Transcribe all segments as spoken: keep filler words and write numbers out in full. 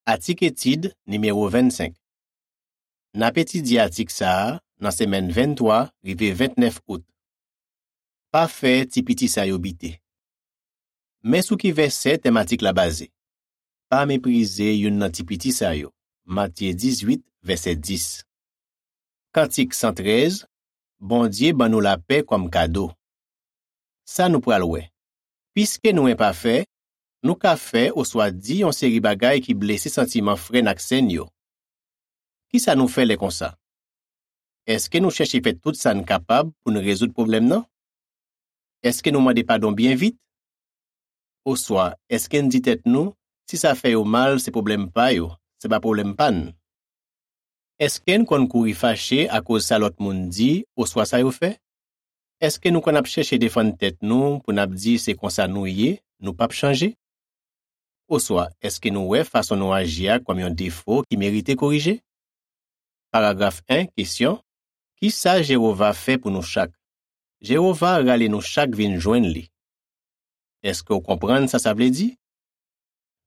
Atik etid nimewo vennsenk. N ap etidye atik sa a nan semèn venntwa rive ventnèf out. Pa fè ti piti sa yo bite. Men sou ki vèsè tèm atik la baze. Pa meprize youn nan ti piti sa yo. Matye dizuit, vèsè dis. Kantik san trèz, Bondye ban nou lapè kòm kado. Sa nou pral wè. Piske nou enpafè, nou ka fè oswa di yon seri bagay ki blese santiman frè n ak sè n yo. Ki sa nou fè lè konsa? Èske nou chèche fè tout sa n kapab pou n rezoud pwoblèm nan? Èske nou mande padon byen vit? Oswa, èske n di tèt nou, si sa fè yo mal, se pwoblèm pa yo, se pa pwoblèm pa n? Èske n konn kouri fache akoz sa lòt moun di oswa sa yo fè? Èske nou konn ap chèche defann tèt nou pou n ap di se konsa nou ye, nou p ap chanje? Oswa, èske nou wè fason nou aji a kòm yon defo ki merite korije? Paragraf en, kesyon, Ki sa Jewova fè pou nou chak? Jewova rale nou chak vin jwenn li. Èske w konprann sa sa vle di?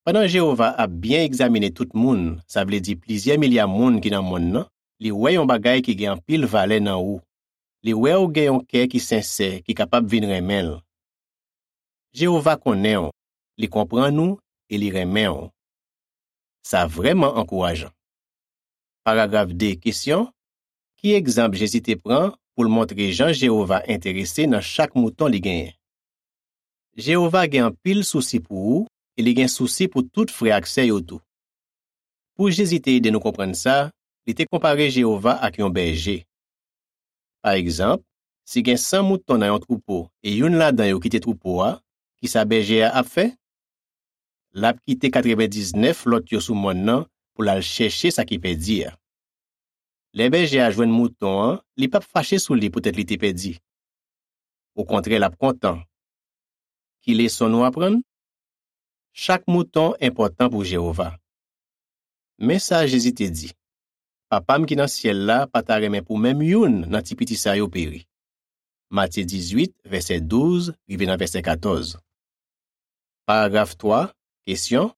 Pandan Jewova ap byen egzamine tout moun, sa vle di plizyè milya moun ki nan monn nan, li wè yon bagay ki gen anpil valè nan ou. Li wè w gen yon kè ki sensè, ki kapab vin renmen l. Jewova konnen w, li konprann ou e li renmen w. Sa vrèman ankourajan. Paragraf de, kesyon, Ki egzanp Jezi te pran pou l montre jan Jewova enterese nan chak mouton li genyen? Jewova gen anpil sousi pou ou e li gen sousi pou tout frè ak sè yo tou. Pou Jezi te ede nou konprann sa, li te konpare Jewova ak yon bèje. Pa egzanp, si gen san mouton nan yon twoupo e youn ladan yo kite twoupo a, ki sa bèje a ap fè? L ap kite katrevendiznèf lòt yo sou mòn nan pou l al chèche sa ki pèdi a. Lè bèje a jwenn mouton an, li p ap fache sou li poutèt li te pèdi. Okontrè, l ap kontan. Ki leson nou aprann? Chak mouton enpòtan pou Jewova. Men sa Jezi te di, Papa m ki nan syèl la pa ta renmen pou menm youn nan ti piti sa yo peri. Matye dizuit, vèsè douz rive nan vèsè katòz. Paragraf twa, kesyon,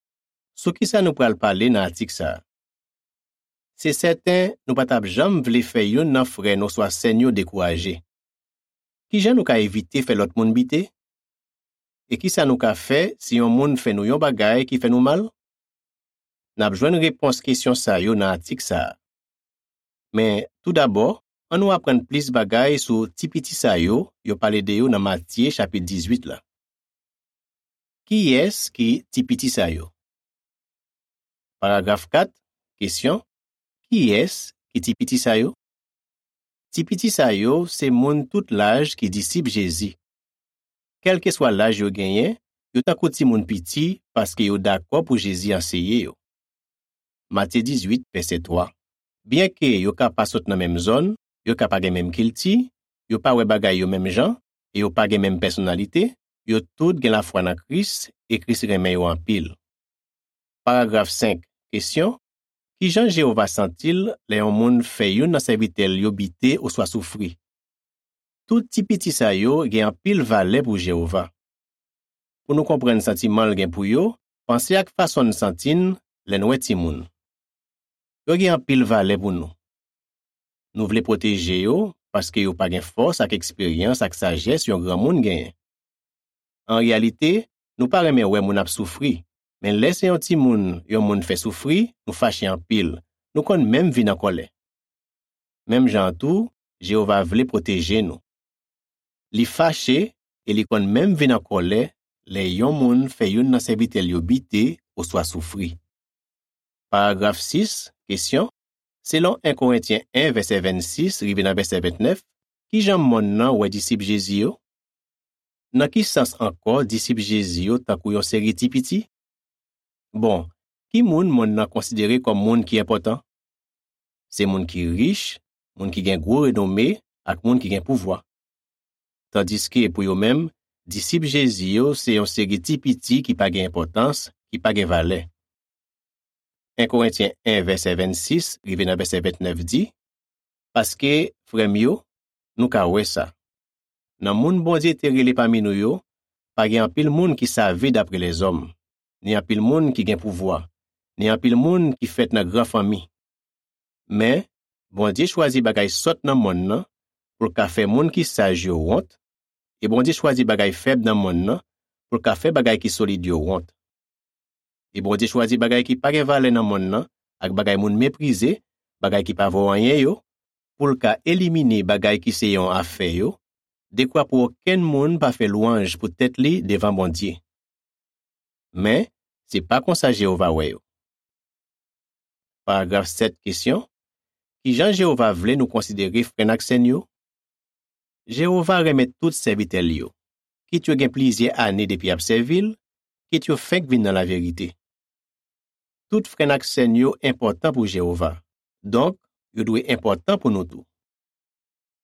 Sou ki sa nou pral pale nan atik sa a? Se sèten, nou pa t ap janm vle fè youn nan frè n oswa sè n yo dekouraje. Ki jan nou ka evite fè lòt moun bite? E ki sa nou ka fè si yon moun fè nou yon bagay ki fè nou mal? N ap jwenn repons kesyon sa yo nan atik sa a. Men, toudabò, ann nou aprann plis bagay sou ti piti sa yo yo pale de yo nan Matye chapit dizuit la. Kiyès ki ti piti sa yo? Paragraf kat, kesyon, Kiyès ki ti piti sa yo? Ti piti sa yo se moun tout laj ki disip Jezi. Kèlkeswa laj yo genyen, yo tankou timoun piti paske yo dakò pou Jezi anseye yo. Matye dizuit, vèsè twa. Byenke yo ka pa sot nan menm zòn, yo ka pa gen menm kilti, yo pa wè bagay yo menm jan, e yo pa gen menm pèsonalite, yo tout gen lafwa nan Kris, e Kris renmen yo anpil. Paragraf senk, kesyon, Ki jan Jewova santi l lè yon moun fè youn nan sèvitè l yo bite oswa soufri? Tout ti piti sa yo gen anpil valè pou Jewova. Pou nou konprann santiman l gen pou yo, panse ak fason n santi n lè n wè timoun. Yo gen anpil valè pou nou. Nou vle pwoteje yo paske yo pa gen fòs ak eksperyans ak sajès yon granmoun genyen. An reyalite, nou pa renmen wè moun ap soufri, men lè se yon timoun yon moun fè soufri, nou fache anpil, nou konn menm vin an kòlè. Menm jan an tou, Jewova vle pwoteje nou. Li fache e li konn menm vin an kòlè lè yon moun fè youn nan sèvitè l yo bite oswa soufri. Paragraf sis, kesyon, Selon en Korentyen en, vèsè vennsis rive nan vèsè ventnèf, ki jan monn nan wè disip Jezi yo? Nan ki sans ankò disip Jezi yo tankou yon seri ti piti? Bon, ki moun monn nan konsidere kòm moun ki enpòtan? Se moun ki rich, moun ki gen gwo renome, ak moun ki gen pouvwa. Tandiske pou yo menm, disip Jezi yo se yon seri ti piti ki pa gen enpòtans, ki pa gen valè. En Korentyen en, vèsè vennsis rive nan vèsè ventnèf di, Paske, frè m yo, nou ka wè sa. Nan moun Bondye te rele pami nou yo, pa gen anpil moun ki save dapre lèzòm, ni anpil moun ki gen pouvwa, ni anpil moun ki fèt nan gran fanmi. Men, Bondye chwazi bagay sòt nan monn nan pou l ka fè moun ki saj yo wont, e Bondye chwazi bagay fèb nan monn nan pou l ka fè bagay ki solid yo wont. E Bondye chwazi bagay ki pa gen valè nan monn nan ak bagay moun meprize, bagay ki pa vo anyen yo, pou l ka elimine bagay ki se yon afè yo, dekwa pou okenn moun pa fè lwanj pou tèt li devan Bondye. Men, se pa konsa Jewova wè yo. Paragraf sèt, kesyon: Ki jan Jewova vle nou konsidere frè n ak sè n yo? Jewova renmen tout sèvitè l yo, kit yo gen plizyè ane depi y ap sèvi l, kit yo fenk vin nan laverite. Tout frè n ak sè n yo enpòtan pou Jewova, donk, yo dwe enpòtan pou nou tou.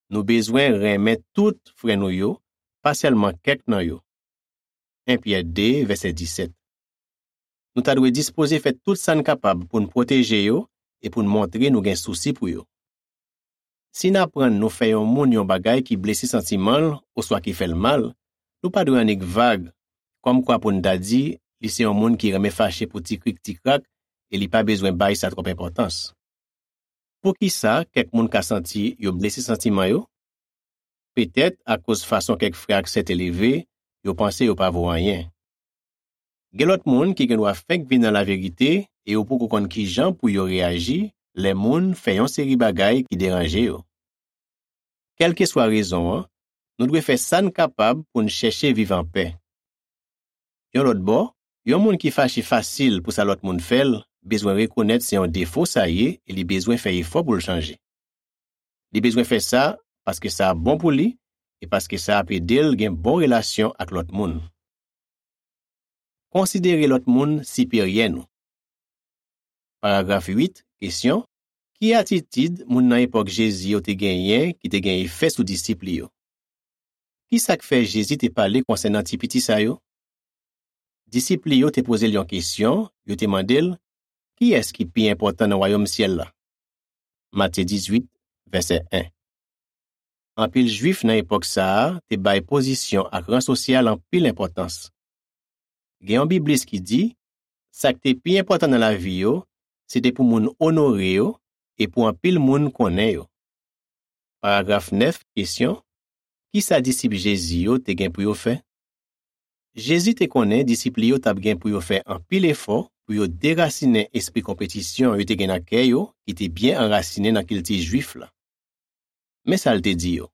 Nou bezwen renmen tout frè nou yo, pa sèlman kèk nan yo. En Pyè de, vèsè disèt. Nou ta dwe dispoze fè tout sa n kapab pou n pwoteje yo e pou n montre nou gen sousi pou yo. Si n aprann nou fè yon moun yon bagay ki blese santiman l oswa ki fè l mal, nou pa dwe annik vag, kòmkwa pou n ta di li se yon moun ki renmen fache pou ti krik ti krak e li pa bezwen bay sa twòp enpòtans. Poukisa kèk moun ka santi yo blese santiman yo? Petèt akoz fason kèk frè ak sè te leve, yo panse yo pa vo anyen. Gen lòt moun ki gendwa fenk vin nan laverite e yo poko konn ki jan pou yo reyaji lè moun fè yon seri bagay ki deranje yo. Kèlkeswa rezon an, nou dwe fè sa n kapab pou n chèche viv anpè. Yon lòt bò, yon moun ki fache fasil pou sa lòt moun fè l bezwen rekonèt se yon defo sa ye e li bezwen fè efò pou l chanje. Li bezwen fè sa paske sa ap bon pou li e paske sa ap ede l gen bon relasyon ak lòt moun. Konsidere lòt moun siperyè nou. Paragraf uit, kesyon: Ki atitid moun nan epòk Jezi yo te genyen ki te gen efè sou disip li yo? Ki sa k fè Jezi te pale konsènan ti piti sa yo? Disip li yo te poze l yon kesyon, yo te mande l: Kiyès ki pi enpòtan nan wayòm syèl la? Matye dizuit, vèsè en. Anpil Jwif nan epòk sa a te bay pozisyon ak ran sosyal anpil enpòtans. Gen yon biblis ki di, sa k te pi enpòtan nan lavi yo, se te pou moun onore yo e pou anpil moun konnen yo. Paragraf nèf, kesyon: Ki sa disip Jezi yo te gen pou yo fè? Jezi te konnen disip li yo t ap gen pou yo fè anpil efò pou yo derasinen espri konpetisyon yo te gen nan kè yo ki te byen anrasinen nan kilti Jwif la. Men sa l te di yo: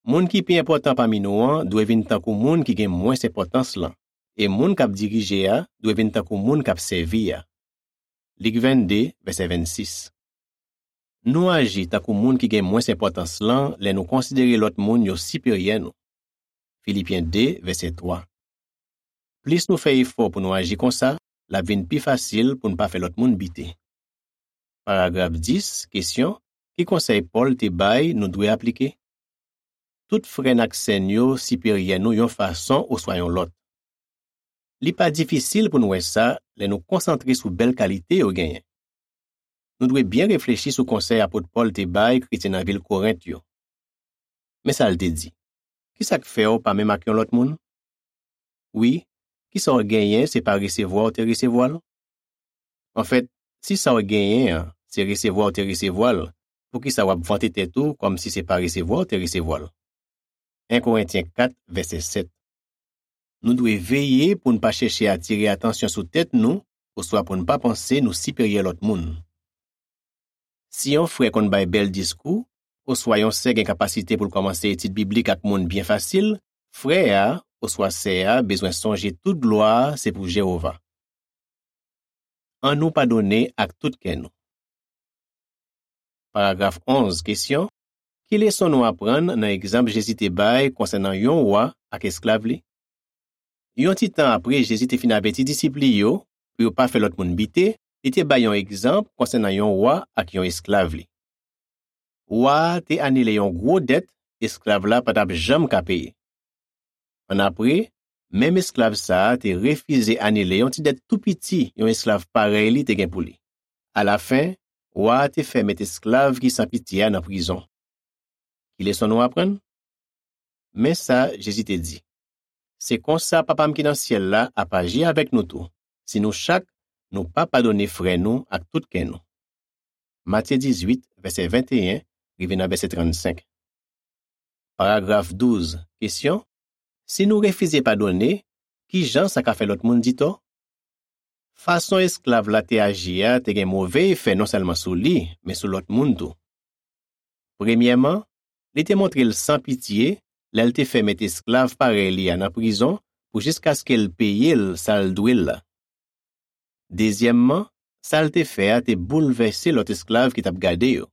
Moun ki pi enpòtan pami nou an dwe vin tankou moun ki gen mwens enpòtans lan, e moun k ap dirije a dwe vin tankou moun k ap sèvi a. Lik vennde, vèsè vennsis. Nou aji tankou moun ki gen mwens enpòtans lan lè nou konsidere lòt moun yo siperyè nou. Filipyen de, vèsè twa. Plis nou fè efò pou nou aji konsa, l ap vin pi fasil pou n pa fè lòt moun bite. Paragraf dis, kesyon: Ki konsèy Pòl te bay nou dwe aplike? Tout frè n ak sè n yo siperyè nou yon fason oswa yon lòt. Li pa difisil pou n wè sa lè nou konsantre sou bèl kalite yo genyen. Nou dwe byen reflechi sou konsèy apot Pòl te bay kretyen nan vil Korent yo. Men sa l te di: Ki sa k fè w pa menm ak yon lòt moun? Wi, ki sa w genyen se pa resevwa w te resevwa l? Anfèt, si sa w genyen an se resevwa w te resevwa l, poukisa w ap vante tèt ou kòmsi se pa resevwa w te resevwa l? En Korentyen kat, vèsè sèt. Nou dwe veye pou n pa chèche atire atansyon sou tèt nou oswa pou n pa panse nou siperyè lòt moun. Si yon frè konn bay bèl diskou, oswa yon sè gen kapasite pou l kòmanse etid biblik ak moun byen fasil, frè a oswa sè a bezwen sonje tout glwa a se pou Jewova. Annou padone ak tout kè nou. Paragraf onz, kesyon: Ki leson nou aprann nan egzanp Jezi te bay konsènan yon wa ak esklav li? Yon ti tan apre Jezi te fin avèti disip li yo pou yo pa fè lòt moun bite, li te bay yon egzanp konsènan yon wa ak yon esklav li. Wa a te anile yon gwo dèt esklav la pa t ap janm ka peye. Annapre, menm esklav sa a te refize anile yon ti dèt tou piti yon esklav parèy li te gen pou li. Alafen, wa a te fè met esklav ki san pitye a nan prizon. Ki leson nou aprann? Men sa Jezi te di: Se konsa Papa m ki nan syèl la ap aji avèk nou tou, si nou chak nou pa padone frè nou ak tout kè nou. Matye dizuit, vèsè venteyen, rive nan vèsè trannsenk. Paragraf douz, kesyon: si nou refize padone, ki jan sa ka fè lòt moun di tò? Fason esklav la te aji a te gen move efè non sèlman sou li, men sou lòt moun tou. Premyèman, li te montre l san pitye lè l te fè mèt esklav parèy li a nan prizon pou jiskaske l peye l sa l dwe l la. Dezyèmman, sa l te fè a te boulvèse lòt esklav ki t ap gade yo.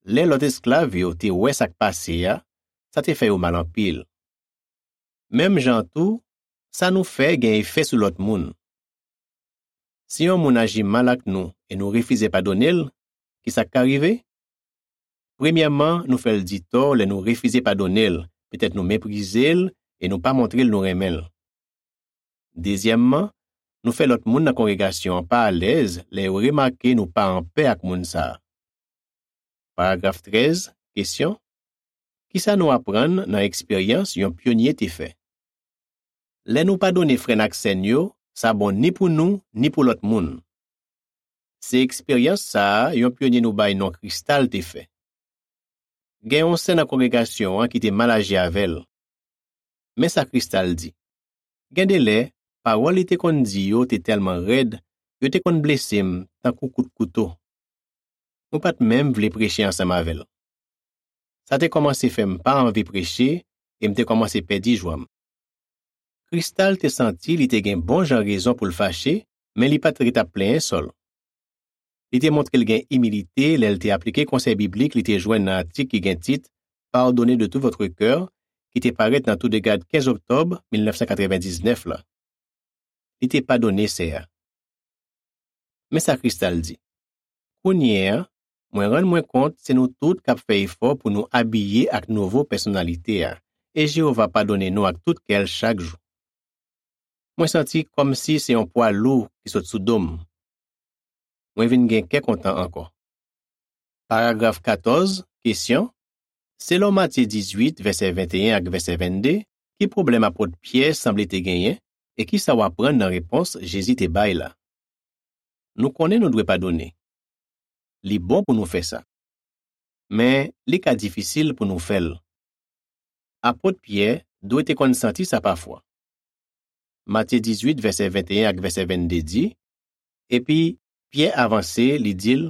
Lè lòt esklav yo te wè sa k pase a, sa te fè yo mal anpil. Menm jan an tou, sa nou fè gen efè sou lòt moun. Si yon moun aji mal ak nou e nou refize padone l, ki sa k ka rive? Premyèman, nou fè l di tò lè nou refize padone l, petèt nou meprize l e nou pa montre l nou renmen l. Dezyèmman, nou fè lòt moun nan kongregasyon an pa alèz lè yo remake nou pa anpè ak moun sa a. Paragraf trèz, kesyon: ki sa nou aprann nan eksperyans yon pyonye te fè? Lè nou padone frè n ak sè n yo, sa bon ni pou nou, ni pou lòt moun. Se eksperyans sa a yon pyonye nou bay non Kristal te fè. Gen yon sè nan kongregasyon an ki te mal aji avè l. Men sa Kristal di: gen de lè, pawòl li te konn di yo te tèlman rèd, yo te konn blese m tankou kout kouto. Mwen pa t menm vle preche ansanm avè l. Sa te kòmanse fè m pa anvi preche e m te kòmanse pèdi jwa m. Kristal te santi li te gen bon jan rezon pou l fache, men li pa t ret ap plenyen sò l. Li te montre l gen imilite lè l te aplike konsèy biblik li te jwenn nan atik ki gen tit Pardonnez de tout votre cœur, ki te parèt nan Toudegad kenz oktòb mil nèf san katrevendiznèf la. Li te padone sè a. Men sa Kristal di: kounye a, mwen rann mwen kont se nou tout k ap fè efò pou nou abiye ak nouvo pèsonalite a, e Jewova padone nou ak tout kè l chak jou. Mwen santi kòmsi se yon pwa lou ki sot sou do m. Mwen vin gen kè kontan ankò. Paragraf katòz, kesyon: selon Matye dizuit, vèsè venteyen ak vèsè vennde, ki pwoblèm apot Pyè sanble te genyen, e ki sa w aprann nan repons Jezi te bay la? Nou konnen nou dwe padone. Li bon pou nou fè sa. Men, li ka difisil pou nou fè l. Apot Pyè dwe te konn santi sa pafwa. Matye dizuit, vèsè venteyen ak vèsè vennde di: epi Pyè avanse, li di l: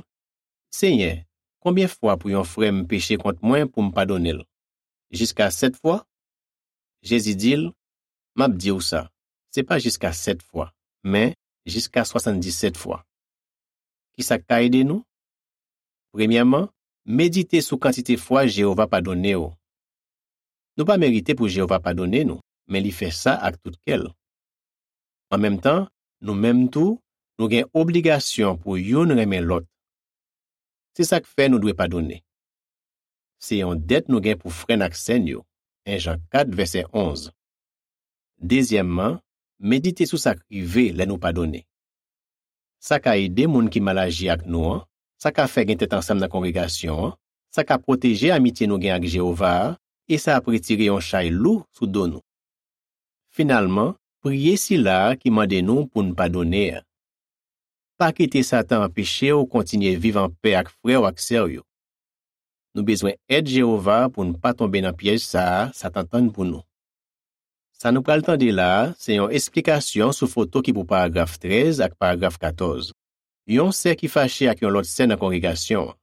Senyè, konbyen fwa pou yon frè m peche kont mwen pou m padone l? Jiska sèt fwa? Jezi di l: M ap di w sa, se pa jiska sèt fwa, men jiska swasanndizzèt fwa. Ki sa k ka ede nou? Premyèman, medite sou kantite fwa Jewova padone w. Nou pa merite pou Jewova padone nou, men li fè sa ak tout kè l. An menm tan, nou menm tou, nou gen obligasyon pou youn renmen lòt. Se sa k fè nou dwe padone. Se yon dèt nou gen pou frè n ak sè n yo, en Jan kat, vèsè onz. Dezyèmman, medite sou sa k rive lè nou padone. Sa ka ede moun ki mal aji ak nou an, sa ka fè gen tèt ansanm nan kongregasyon an, sa ka pwoteje amitye nou gen ak Jewova a, e sa ap retire yon chay lou sou do nou. Finalman, priye Sila a ki mande nou pou n padone a. Pa kite Satan anpeche w kontinye viv anpè ak frè w ak sè w yo. Nou bezwen èd Jewova pou n pa tonbe nan pyèj sa a Satan tann pou nou. Sa nou pral tande la a se yon esplikasyon sou foto ki pou paragraf trèz ak paragraf katòz. Yon sè ki fache ak yon lòt sè nan kongregasyon an.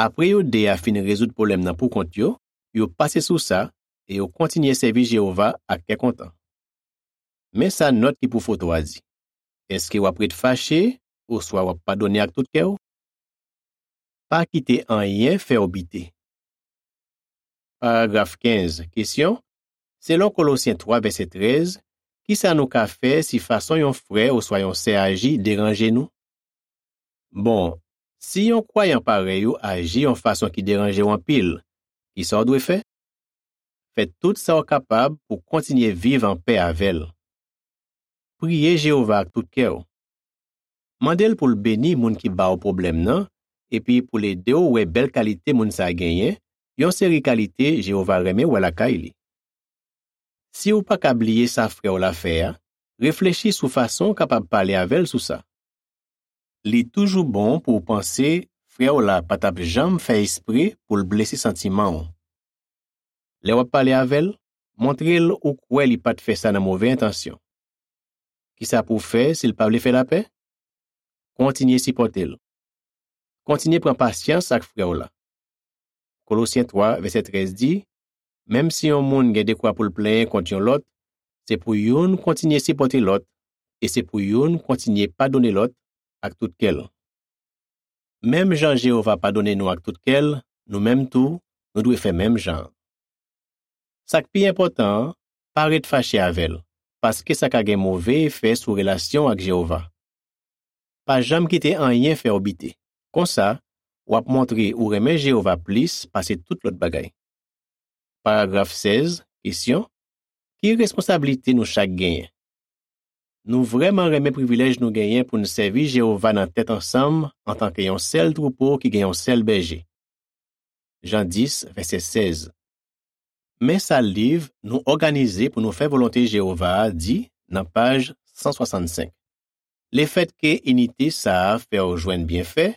Apre yo de a fin rezoud pwoblèm nan poukont yo, yo pase sou sa e yo kontinye sèvi Jewova ak kè kontan. Men sa nòt ki pou foto a di: èske w ap ret fache oswa w ap padone ak tout kè w? Pa kite anyen fè w bite. Paragraf kenz, kesyon: selon Kolosyen twa, vèsè trèz, ki sa nou ka fè si fason yon frè oswa yon sè aji deranje nou? Bon, si yon kwayan parèy ou aji yon fason ki deranje w anpil, ki sa w dwe fè? Fè tout sa w kapab pou w kontinye viv anpè avè l. Priye Jewova ak tout kè w. Mande l pou l beni moun ki ba w pwoblèm nan, epi pou l ede w wè bèl kalite moun sa a genyen, yon seri kalite Jewova renmen wè lakay li. Si w pa ka bliye sa frè w la fè a, Reflechi sou fason w kapab pale avè l sou sa. Li toujou bon pou w panse frè w la pa t ap janm fè espre pou l blese santiman w. Lè w ap pale avè l, montre l ou kwè li pa t fè sa nan move entansyon. Ki sa pou w fè si l pa vle fè lapè? Kontinye sipòte l. Kontinye pran pasyans ak frè w la. Kolosyen twa, vèsè trèz di, menm si yon moun gen dekwa pou l plenyen kont yon lòt, se pou youn kontinye sipòte lòt, e se pou youn kontinye padone lòt ak tout kè l. Menm jan Jewova padone nou ak tout kè l, nou menm tou, nou dwe fè menm jan an. Sa k pi enpòtan an, pa ret fache avè l, paske sa ka gen move efè sou relasyon w ak Jewova. Pa janm kite anyen fè w bite. Konsa, w ap montre ou renmen Jewova plis pase tout lòt bagay. Paragraf sèz, kesyon, ki responsablite nou chak genyen? Nou vrèman renmen privilèj nou genyen pou n sèvi Jewova nan tèt ansanm antanke yon sèl twoupo ki gen yon sèl bèje. Jan dis, vèsè sèz. Men sa liv Nou òganize pou nou fè volonte Jewova a di nan paj san swasannsenk. Lefètke inite sa a fè w jwenn byenfè,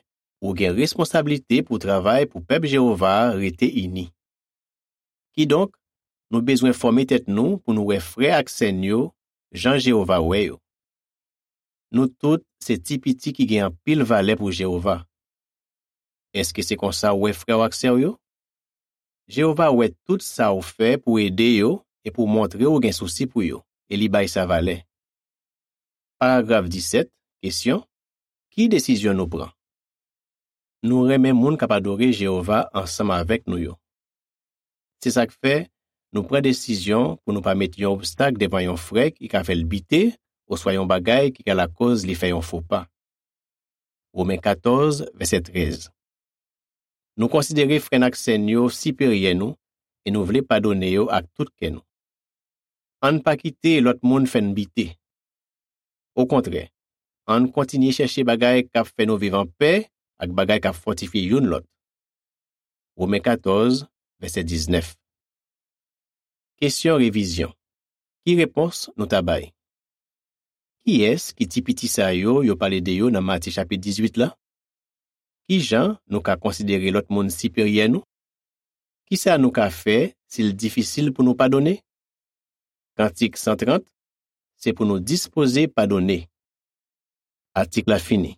ou gen responsablite pou travay pou pèp Jewova a rete ini. Kidonk, nou bezwen fòme tèt nou pou nou wè frè ak sè n yo jan Jewova wè yo. Nou tout se ti piti ki gen anpil valè pou Jewova. Èske se konsa w wè frè w ak sè w yo? Jewova wè tout sa w fè pou ede yo e pou montre w gen sousi pou yo, e li bay sa valè. Paragraf disèt, kesyon, ki desizyon nou pran? Nou renmen moun k ap adore Jewova ansanm avèk nou yo. Se sa k fè, nou pran desizyon pou nou pa met yon obstak devan yon frè ki ka fè l bite oswa yon bagay ki ka lakòz li fè yon fo pa. Women katòz, vèsè trèz. Nou konsidere frè n ak sè n yo siperyè nou e nou vle padone yo ak tout kè nou. Ann pa kite lòt moun fè n bite. Okontrè, ann kontinye chèche bagay k ap fè nou viv anpè ak bagay k ap fòtifye youn lòt. Women katòz, vèsè diznèf. Kesyon revizyon. Ki repons nou ta bay? Kiyès ki ti piti sa yo yo pale de yo nan Matye chapit dizuit la? Ki jan nou ka konsidere lòt moun siperyè nou? Ki sa nou ka fè si l difisil pou nou padone? Kantik san trant, se pou nou dispoze padone. Atik la fini.